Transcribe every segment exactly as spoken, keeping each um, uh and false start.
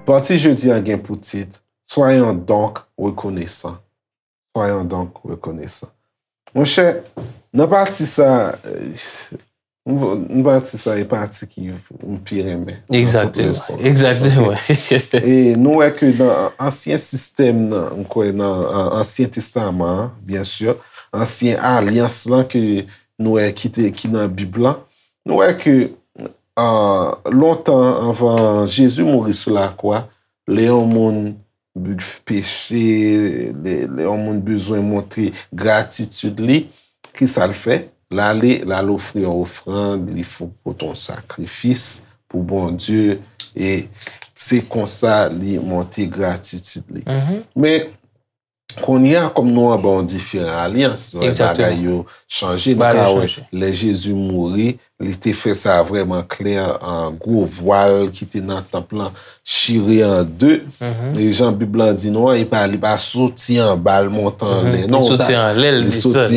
Pati jodi a gen pou tit, Soyons donc reconnaissants. Soyons donc reconnaissants. Monchè, nan pati sa, euh, m, m pati sa e pati ki m pi renmen nan tout leson. Egzakteman. E nou wè ke nan ansyen sistèm nan, m kwè nan an- Ansyen Testaman an, byen si, ansyen alyans lan ke nou wè ki te, ki nan Bib lan, nou wè ke ah, lontan anvan Jezi mouri sou lakwa, lè yon moun peche, lè, lè yon moun bezwen montre gratitid li, ki sa l fè? L ale, l al ofri yon ofrann, li fou pote yon sakrifis pou Bondye, e se konsa li montre gratitid li. Men, kounye a, kòm nou anba yon diferan alyans, bagay yo chanje. Nou ka wè, lè Jezi mouri, li te fè sa vrèman klè, an gwo vwal ki te nan tanp lan chire an de. E jan Bib lan di nou an, li pa, li pa soti anba l monte anlè. Non, li soti anlè l desann.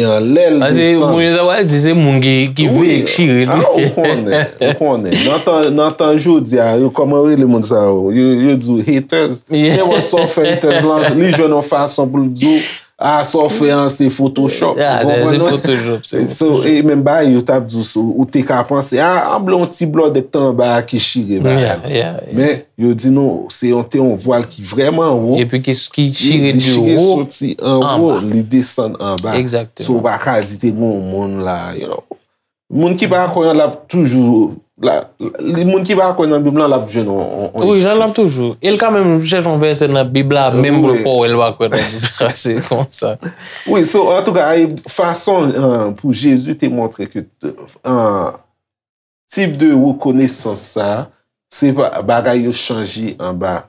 Paske moun yo ta pral di se moun ki, ki veye k chire l. Ou konnen, ou konnen. Nan tan, nan tan jodi a, yo, kòman yo rele moun sa yo? Yo, yo di w haters. Nenpòt sa w fè, haters lan, li jwenn yon fason pou l di w, ah, sa w fè an se Photoshop. Ou konprann mwen? So, e menm bagay yo t ap di w, so, ou te ka panse, ah, anble yon ti blòdè k te anba a ki chire bagay la. Men, yo di nou, se yon, te yon vwal ki vrèman wo. Epi ki, ki chire de wo soti anwo, li desann anba. So, ou pa ka di te gen yon moun la, you know. Moun ki pa kwè an, l ap toujou, la, li, moun ki pa kwè nan Bib lan, l ap jwenn yon, yon, yon ekskiz. Wi, l ap toujou. E l ka menm chèche yon vèsè nan Bib la, menm pou l fè w wè l pa kwè nan Bib la. Se konsa. Wi, so, antouka, e fason, euh, pou Jezi te montre ke, euh, tip de rekonesans sa, se pa, bagay yo chanje anba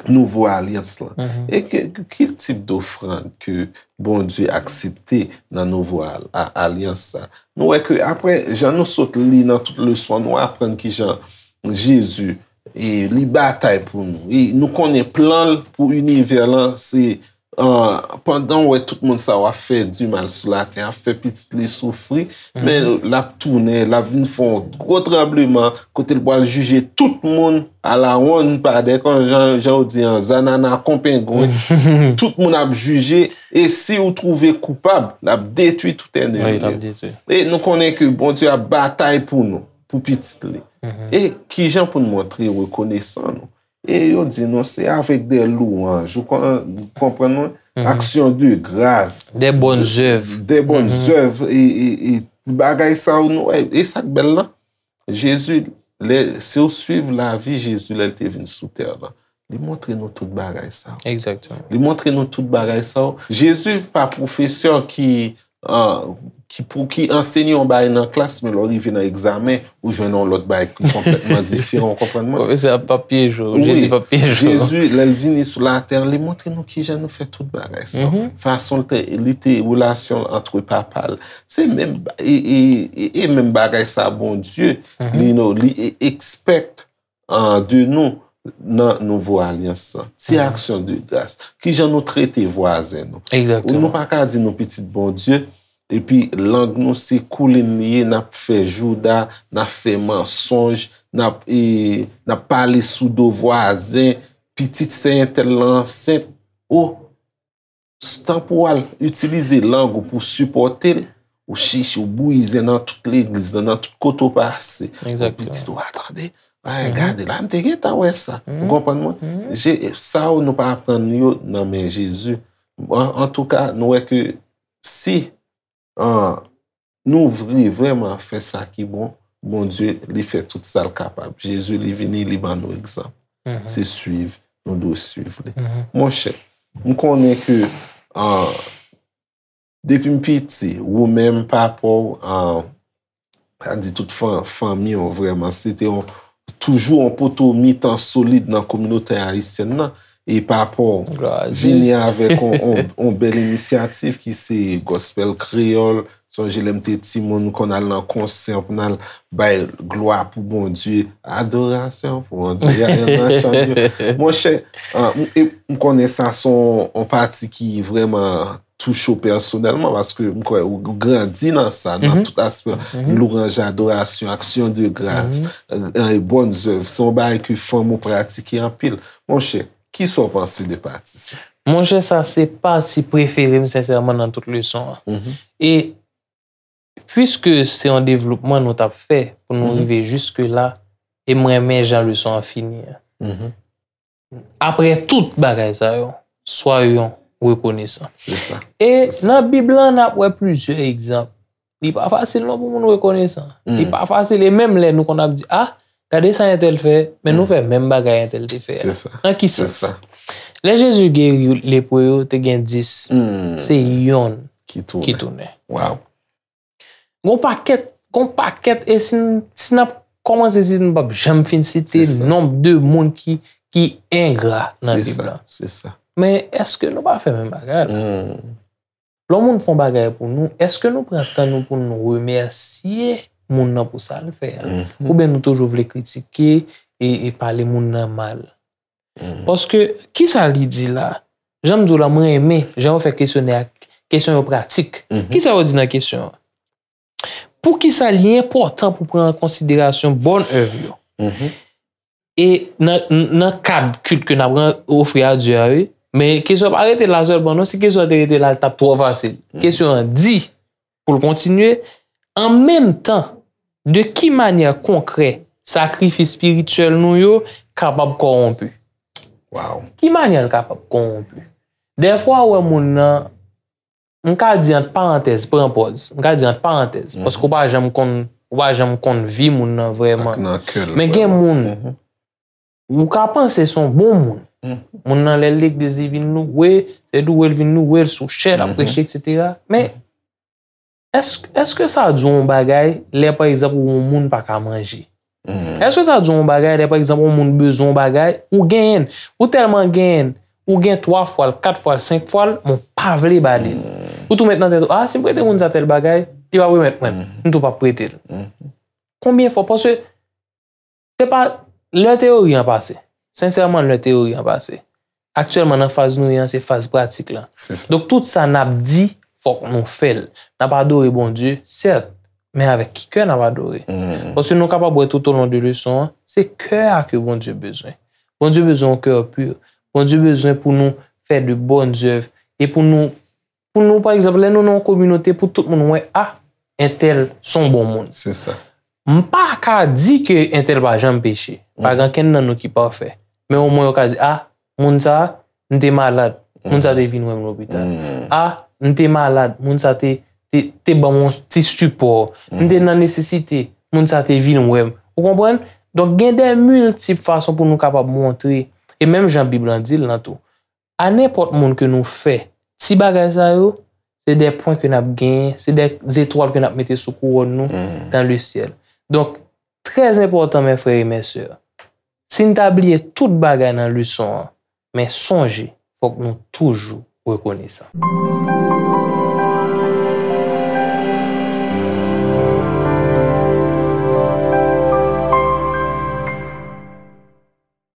nouvo alyans lan. E ke, ke, ki tip dofrann ke Bondye aksepte nan nouvo al-, a-, alyans sa? Nou wè ke apre, jan nou sot li nan tout leson, nou aprann kijan Jezi, e, li batay pou nou. E nou konnen plan l pou inivè lan, se, ah, pandan w wè tout moun sa yo ap fè dimal sou latè, ap fè pitit li soufri, men l ap tounen, l ap vin fè yon gwo tranbleman, kote l pral jije tout moun a la wonn, pa dèkon, jan, jan w di an, zanana kon pengwen. Tout moun ap jije, e si w twouve koupab, l ap detwi tout ènmi yo. E nou konnen ke Bondye ap batay pou nou, pou pitit li. E kijan pou n montre rekonesan nou? E yo di nou se avèk de louanj, ou kon-, ou konprann mwen? Aksyon de gras. De bòn zèv. De bòn zèv, e, e, e bagay sa yo, nou, e, e sa k bèl lan. Jezi, lè, si w swiv lavi Jezi lè l te vin sou tè lan, li montre nou tout bagay sa yo. Egzakteman. Li montre nou tout bagay sa yo. Jezi pa pwofesè ki, ah, ki pou, ki ansenye yon bagay nan klas, men lè w rive nan egzamen, ou jwenn yon lòt bagay ki konplètman diferan, w konprann mwen? Pwofesè a p ap pyeje w, Jezi p ap pyeje w. Jezi, lè l vini sou latè, li montre nou kijan nou fè tout bagay sa yo. Fason l te, li te relasyon l antre papa l. Se menm, e, e, e, e menm bagay sa Bondye, li, nou, li e-, expect, ah, de nou nan nouvo alyans lan. Ti aksyon de gras. Kijan nou trete vwazen nou? Egzakteman. Nou pa ka di nou pitit Bondye, epi lang nou se koulin li ye, n ap fè jouda, n ap fè mansonj, n ap, e, n ap pale sou do vwazen, pitit sè entèl lan ansent. O, s-, tan pou w al itilize lang ou pou sipòte l, ou chiche, ou bouyi zen nan tout legliz lan, nan tout kote w pase. Egzakteman. Pitit ou a tande, ay, gade la, m te gentan wè sa. Ou konprann mwen? Je-, sa yo nou pa aprann yo nan men Jezi. An, antouka, nou wè ke si, ah, nou vle vrèman fè sa ki bon, Bondye, li fè tout sa l kapab. Jezi, li vini, li ban nou egzanp. Se swiv, nou dwe swiv li. Monchè, m konnen ke, ah, depi m piti, ou menm, papa w, ah, sa di tout fan-, fanmi w vrèman, se te yon, toujou yon poto mitan solid nan kominote ayisyèn nan. E papa w vini avèk on, on, on bèl inisyativ ki se Gospel Kreyòl. Sonje lè m te timoun, m konn al nan konsè pou n al bay glwa pou Bondye, adorasyon pou Bondye, nan chan yo. Monchè, ah, m, e m konnen sa se on, on pati ki vrèman touche w pèsonèlman, paske m kwè ou grandi nan sa, nan tout aspè, lwanj, adorasyon, aksyon de gras, e, e, bòn zèv, se yon bagay ke fanm ou pratike anpil. Monchè, kisa w panse de pati sa? Monchè, sa se pati prefere m, sensèman, nan tout leson an. E piske se yon devlopman nou t ap fè pou nou rive jiske la, e m renmen jan leson an fini an. Apre tout bagay sa yo, soyons reconnaissants. Se sa. E nan Bib lan, n ap wè plizyè egzanp. Li pa fasil non pou moun rekonesan. Li pa fasil. E menm lè nou konn ap di, ah, gade sa entèl fè, men nou fè menm bagay entèl te fè a. Se sa. Nan ki sans? Lè Jezi geri lepre yo, te gen dis. Se yonn ki tounen. Ki tounen. Wow. Gon pakèt, gon pakèt, e si n, si n ap kòmanse, si n p ap janm fin site nonb de moun ki, ki engra nan Bib la. Se sa. Men èske nou pa fè menm bagay la? Lè yon moun fè yon bagay pou nou, èske nou pran tan nou pou nou remèsye moun nan pou sa l fè a? Oubyen nou toujou vle kritike e, e pale moun nan mal? Paske, kisa li di la? Jan m di w la, mwen renmen jan yo fè kesyonè a, kesyon yo pratik. Kisa yo di nan kesyon an? Poukisa li enpòtan pou pran an konsiderasyon bòn èv yo? E nan, nan kad kilt ke n ap ran-, ofri a Dye a, wi. Men kesyon pa rete la sèlman, non. Si kesyon an te rete la, l t ap twò fasil. Kesyon an di, pou l kontinye, an menm tan, de ki manyè konkrè sakrifis espirityèl nou yo kapab kòwonpi? Wow. Ki manyè l kapab kòwonpi? Dèfwa, ou wè moun nan, m ka di ant parantèz, pran pòz. M ka di ant parantèz, paske ou pa janm konn, ou pa janm konn vi moun nan vrèman. Sa k nan kè l vrèman. Men gen moun, ou ka panse se yon bon moun. Moun nan, lè l legliz, li vin loure, se loure l vin loure, l sou chè, l ap preche, etsetera. Men, èske, èske sa di w yon bagay lè, pa egzanp, ou yon moun pa ka manje? Èske sa di w yon bagay lè, pa egzanp, yon moun bezwen yon bagay, ou genyen l, ou tèlman genyen l, ou gen twa fwa l, kat fwa l, senk fwa l, men w pa vle ba li l. Ou tou met nan tèt ou, ah, si m prete moun sa tèl bagay, li p ap remèt mwen l, m tou p ap prete l. Konbyen fwa? Paske se pa, lè teyori an pase. Sensèman, lè teyori an pase. Aktyèlman, nan faz nou ye an, se faz pratik lan. Se sa. Donk, tout sa n ap di, fòk nou fè l. N ap adore Bondye, sèt, men avèk ki kè n ap adore? Paske nou kapab wè toutolon de leson an, se kè a ke Bondye bezwen. Bondye bezwen yon kè pi. Bondye bezwen pou nou fè de bòn zèv e pou nou pou nou, pa egzanp, lè nou nan yon kominote, pou tout moun wè, ah, entèl se yon bon moun. Se sa. M pa ka di ke entèl pa janm peche. Pa gen kenn nan nou ki pafè. Men omwen yo ka di, ah, moun sa, m te malad. Moun sa te vin wè m lopital. Ah, m te malad. Moun sa te, te, te ban m yon ti sipò. M te nan nesesite. Moun sa te vin wè m. Ou konprann? Donk, gen de miltip fason pou nou kapab montre. E menm jan Bib lan di l lan tou. A nenpòt moun ke nou fè ti bagay sa yo, se de pwen ke n ap genyen, se de zetwal ke n ap mete sou kouwòn nou dan le syèl. Donk, trè enpòtan, mè frè e mè sè, si n ta bliye tout bagay nan leson an, men sonje, fòk nou toujou rekonesan.